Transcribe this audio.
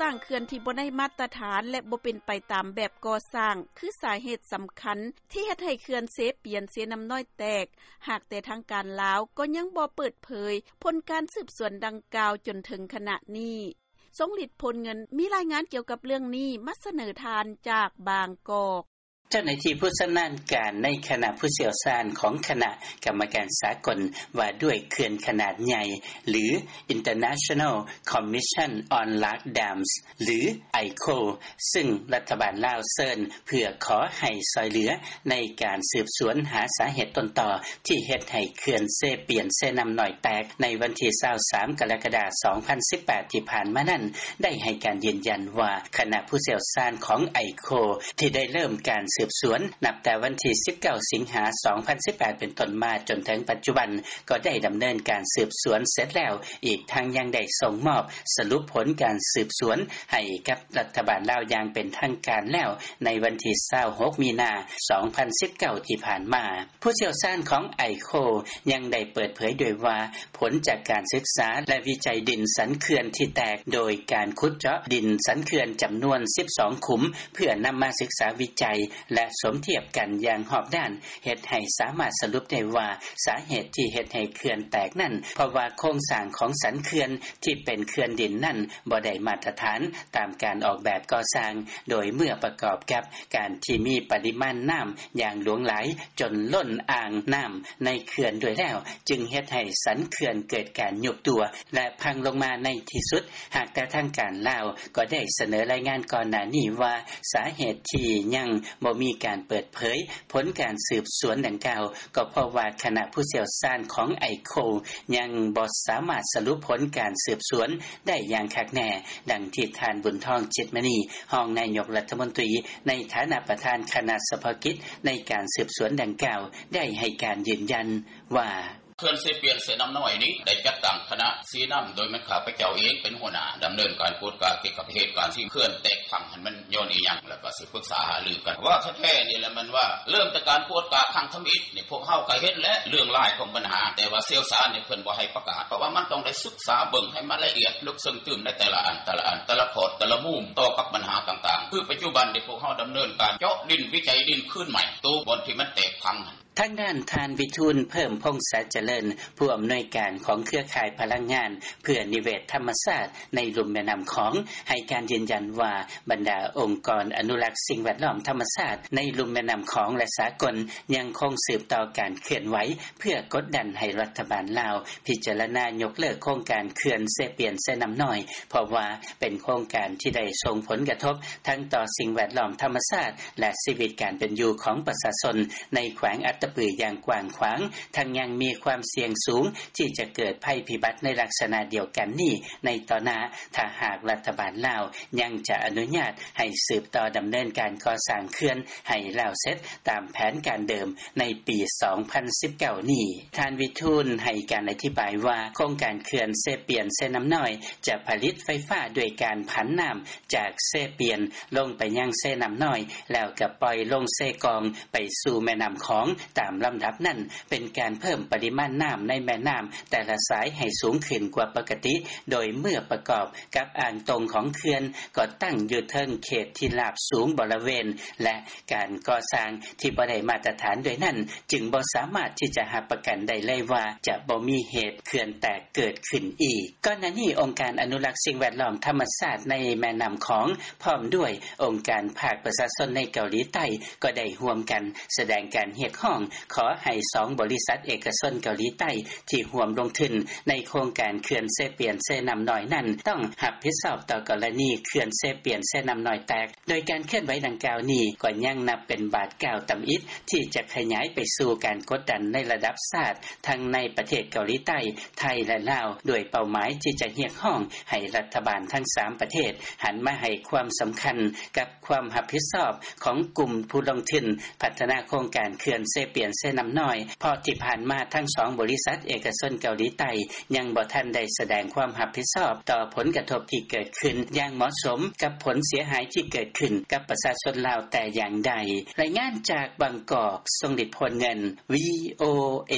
ສ້າງເຂື່ອນທີ່ບໍ່ໄດ້ມາດຕະຖານ ແລະ ບໍ່ເປັນໄປຕາມແບບກໍ່ສ້າງ ຄືສາເຫດສຳຄັນ ທີ່ເຮັດໃຫ້ເຂື່ອນເຊປຽນ-ເຊນ້ຳນ້ອຍແຕກ ຫາກແຕ່ທາງການລາວ ກໍຍັງບໍ່ເປີດເຜີຍ ຜົນການສືບສວນດັ່ງກ່າວ ຈົນເຖິງຂະນະນີ້. ຊົງລິດ ໂພນເງິນ ມີລາຍງານກ່ຽວກັບເລື່ອງນີ້ ມາສະເໜີທ່ານຈາກບາງກອກ. ເຈົ້າໜ້າທີ່ຜູ້ຊຳນານການ ໃນຄະນະຜູ້ຊ່ຽວຊານ ຂອງຄະນະກຳມະການສາກົນ ວ່າດ້ວຍເຂື່ອນຂະໜາດໃຫຍ່ ຫຼື International Commission on Large Dams ຫຼື ໄອໂຄ ຊຶ່ງລັດຖະບານລາວເຊີນ ເພື່ອຂໍໃຫ້ຊ່ອຍເຫຼືອ ໃນການສືບສວນຫາສາເຫດຕົ້ນຕໍ ທີ່ເຮັດໃຫ້ເຂື່ອນເຊປຽນ-ເຊນ້ຳນ້ອຍແຕກ ໃນວັນທີຊາວສາມ ກໍລະກະດາ ສອງພັນສິບແປດ ທີ່ຜ່ານມານັ້ນ ໄດ້ໃຫ້ການຢືນຢັນວ່າ ຄະນະຜູ້ຊ່ຽວຊານຂອງໄອໂຄ ທີ່ໄດ້ເລີ່ມການສືບສວນ ນັບແຕ່ວັນທີສິບເກົ້າ ສິງຫາ ສອງພັນສິບແປດ ເປັນຕົ້ນມາ ຈົນເຖິງປັດຈຸບັນ ກໍໄດ້ດຳເນີນການສືບສວນເສັດແລ້ວ, ອີກທັງຍັງໄດ້ສົ່ງມອບສະຫຼຸບຜົນການສືບສວນ ໃຫ້ກັບລັດຖະບານລາວຢ່າງເປັນທາງການແລ້ວ ໃນວັນທີຊາວຫົກ ມີນາ ສອງພັນສິບເກົ້າ ທີ່ຜ່ານມາ. ຜູ້ຊ່ຽວຊານຂອງໄອໂຄ ຍັງໄດ້ເປີດເຜີຍດ້ວຍວ່າ ຜົນຈາກການສຶກສາ ແລະ ວິໄຈດິນສັນເຂື່ອນທີ່ແຕກ ໂດຍການຂຸດເຈາະດິນສັນເຂື່ອນຈຳນວນສິບສອງຂຸມ ເພື່ອນຳມາສຶກສາວິໄຈ ແລະ ສົມທຽບກັນຢ່າງຮອບດ້ານ ເຮັດໃຫ້ສາມາດສະຫຼຸບໄດ້ວ່າ ສາເຫດທີ່ເຮັດໃຫ້ເຂື່ອນແຕກນັ້ນ ເພາະວ່າໂຄງສ້າງຂອງສັນເຂື່ອນທີ່ເປັນເຂື່ອນດິນນັ້ນ ບໍ່ໄດ້ມາດຕະຖານຕາມການອອກແບບກໍ່ສ້າງ ໂດຍເມື່ອປະກອບກັບການທີ່ມີປະລິມານນ້ຳຢ່າງຫຼວງຫຼາຍ ຈົນລົ້ນອ່າງນ້ຳໃນເຂື່ອນດ້ວຍແລ້ວ ຈຶ່ງເຮັດໃຫ້ສັນເຂື່ອນເກີດການຍຸບຕົວ ແລະ ພັງລົງມາໃນທີ່ສຸດ. ຫາກແຕ່ທາງການລາວກໍໄດ້ສະເໜີລາຍງານກ່ອນໜ້ານີ້ວ່າ ສາເຫດທີ່ຍັງບໍ່ມີການເປີດເຜີຍຜົນການສືບສວນດັ່ງກ່າວ ກໍເພາະວ່າຄະນະຜູ້ຊ່ຽວຊານຂອງໄອໂຄ ຍັງບໍ່ສາມາດສະຫຼຸບຜົນການສືບສວນໄດ້ຢ່າງຄັກແນ່, ດັ່ງທີ່ທ່ານ ບຸນທອງ ຈິດມະນີ ຮອງນາຍົກລັດຖະມົນຕີ ໃນຖານະປະທານຄະນະສະເພາະກິດໃນການສືບສວນດັ່ງກ່າວ ໄດ້ໃຫ້ການຢືນຢັນວ່າ: ເຂື່ອນເຊປຽນ-ເຊນ້ຳນ້ອຍນີ້ ໄດ້ຈັດຕັ້ງຄະນະຊີ້ນຳ ໂດຍແມ່ນຂ້າພະເຈົ້າເອງເປັນຫົວໜ້າ ດຳເນີນການກວດກາກ່ຽວກັບເຫດການທີ່ເຂື່ອນແຕກພັງຫັ້ນ ມັນຍ້ອນອີ່ຫຍັງ ແລ້ວກໍສຶກປຶກສາຫາລືກັນ ເວົ້າແທ້ໆນີ້ແຫຼະ ແມ່ນວ່າເລີ່ມແຕ່ການກວດກາຄັ້ງທຳອິດນີ້ ພວກເຮົາກໍເຫັນແຫຼະເລື່ອງລາຍຂອງບັນຫາ ແຕ່ວ່າຊ່ຽວຊານນີ້ເພິ່ນບໍ່ໃຫ້ປະກາດ ເພາະວ່າມັນຕ້ອງໄດ້ສຶກສາເບິ່ງໃຫ້ມັນລະອຽດ ເລິກເຊິ່ງຕື່ມໃນແຕ່ລະອັນ ແຕ່ລະອັນ ແຕ່ລະຂອດ ແຕ່ລະມຸມ ຕໍ່ກັບບັນຫາຕ່າງໆ. ຄືປັດຈຸບັນນີ້ ພວກເຮົາດຳເນີນການເຈາະດິນ ວິໄຈດິນຄືນໃໝ່ ໂຕບ່ອນທີ່ມັນແຕກພັງຫັ້ນ. ທາງດ້ານທ່ານ ວິທູນ ເພີ່ມພົງສາຈະເລີນ ຜູ້ອຳນວຍການຂອງເຄືອຂ່າຍພະລັງງານເພື່ອນິເວດທຳມະຊາດໃນລຸ່ມແມ່ນ້ຳຂອງ ໃຫ້ການຢືນຢັນວ່າ ບັນດາອົງກອນອະນຸລັກສິ່ງແວດລ້ອມທຳມະຊາດໃນລຸ່ມແມ່ນ້ຳຂອງ ແລະ ສາກົນ ຍັງຄົງສືບຕໍ່ການເຄື່ອນໄຫວ ເພື່ອກົດດັນໃຫ້ລັດຖະບານລາວພິຈາລະນາຍົກເລີກໂຄງການເຂື່ອນເຊປຽນ-ເຊນ້ຳນ້ອຍ ເພາະວ່າເປັນໂຄງການທີ່ໄດ້ສົ່ງຜົນກະທົບທັງຕໍ່ສິ່ງແວດລ້ອມທຳມະຊາດ ແລະ ຊີວິດການເປັນຢູ່ຂອງປະຊາຊົນໃນແຂວງອັດຕະປືຢ່າງກວ້າງຂວາງ, ທັງຍັງມີຄວາມສ່ຽງສູງທີ່ຈະເກີດໄພພິບັດໃນລັກສະນະດຽວກັນນີ້ໃນຕໍ່ໜ້າ ຖ້າຫາກລັດຖະບານລາວຍັງຈະອະນຸຍາດໃຫ້ສືບຕໍ່ດຳເນີນການກໍ່ສ້າງເຂື່ອນໃຫ້ແລ້ວເສັດຕາມແຜນການເດີມໃນປີສອງພັນສິບເກົ້ານີ້. ທ່ານ ວິທູນ ໃຫ້ການອະທິບາຍວ່າ ໂຄງການເຂື່ອນເຊປຽນ-ເຊນ້ຳນ້ອຍ ຈະຜະລິດໄຟຟ້າດ້ວຍການຜັນນ້ຳຈາກເຊປຽນລົງໄປຍັງເຊນ້ຳນ້ອຍ ແລ້ວກໍປ່ອຍລົງເຊກອງໄປສູ່ແມ່ນ້ຳຂອງຕາມລຳດັບນັ້ນ ເປັນການເພີ່ມປະລິມານນ້ຳໃນແມ່ນ້ຳແຕ່ລະສາຍໃຫ້ສູງຂຶ້ນກວ່າປົກກະຕິ ໂດຍເມື່ອປະກອບກັບອ່າງຕົງຂອງເຂື່ອນ ກໍຕັ້ງຢູ່ເທິງເຂດທີ່ລາບສູງບໍລະເວນ ແລະ ການກໍ່ສ້າງທີ່ບໍ່ໄດ້ມາດຕະຖານດ້ວຍນັ້ນ ຈຶ່ງບໍ່ສາມາດທີ່ຈະຮັບປະກັນໄດ້ເລີຍວ່າ ຈະບໍ່ມີເຫດເຂື່ອນແຕກເກີດຂຶ້ນອີກ. ກ່ອນໜ້ານີ້ ອົງການອະນຸລັກສິ່ງແວດລ້ອມທຳມະຊາດໃນແມ່ນ້ຳຂອງ ພ້ອມດ້ວຍອົງການພາກປະຊາຊົນໃນເກົາຫຼີໃຕ້ ກໍໄດ້ຮ່ວມກັນສະແດງການຮຽກຮ້ອງ ຂໍໃຫ້ສອງບໍລິສັດເອກະຊົນເກົາຫຼີໃຕ້ທີ່ຮ່ວມລົງທຶນໃນໂຄງການເຂື່ອນເຊປຽນ-ເຊນ້ຳນ້ອຍນັ້ນ ຕ້ອງຮັບຜິດຊອບຕໍ່ກໍລະນີເຂື່ອນເຊປຽນ-ເຊນ້ຳນ້ອຍແຕກ. ໂດຍການເຄື່ອນໄຫວດັ່ງກ່າວນີ້ ກໍຍັງນັບເປັນບາດກ້າວຕຳອິດ ທີ່ຈະຂະຫຍາຍໄປສູ່ການກົດດັນໃນລະດັບຊາດ ທັງໃນປະເທດເກົາຫຼີໃຕ້, ໄທ ແລະ ລາວ ດ້ວຍເປົ້າໝາຍທີ່ຈະຮຽກຮ້ອງໃຫ້ລັດຖະບານທັງສາມປະເທດ ຫັນມາໃຫ້ຄວາມສຳຄັນກັບຄວາມຮັບຜິດຊອບຂອງກຸ່ມຜູ້ລົງທຶນພັດທະນາໂຄງການເຂື່ອນເຊປຽນ-ເຊນ້ຳນ້ອຍ ເພາະທີ່ຜ່ານມາທັງສອງບໍລິສັດເອກະຊົນເກົາຫຼີໃຕ້ ຍັງບໍ່ທັນໄດ້ສະແດງຄວາມຮັບຜິດຊອບຕໍ່ຜົນກະທົບທີ່ເກີດຂຶ້ນຢ່າງເໝາະສົມກັບຜົນເສຍຫາຍທີ່ເກີດຂຶ້ນກັບປະຊາຊົນລາວແຕ່ຢ່າງໃດ. ລາຍງານຈາກບາງກອກ, ຊົງລິດ ໂພນເງິນ, ວີໂອເອ.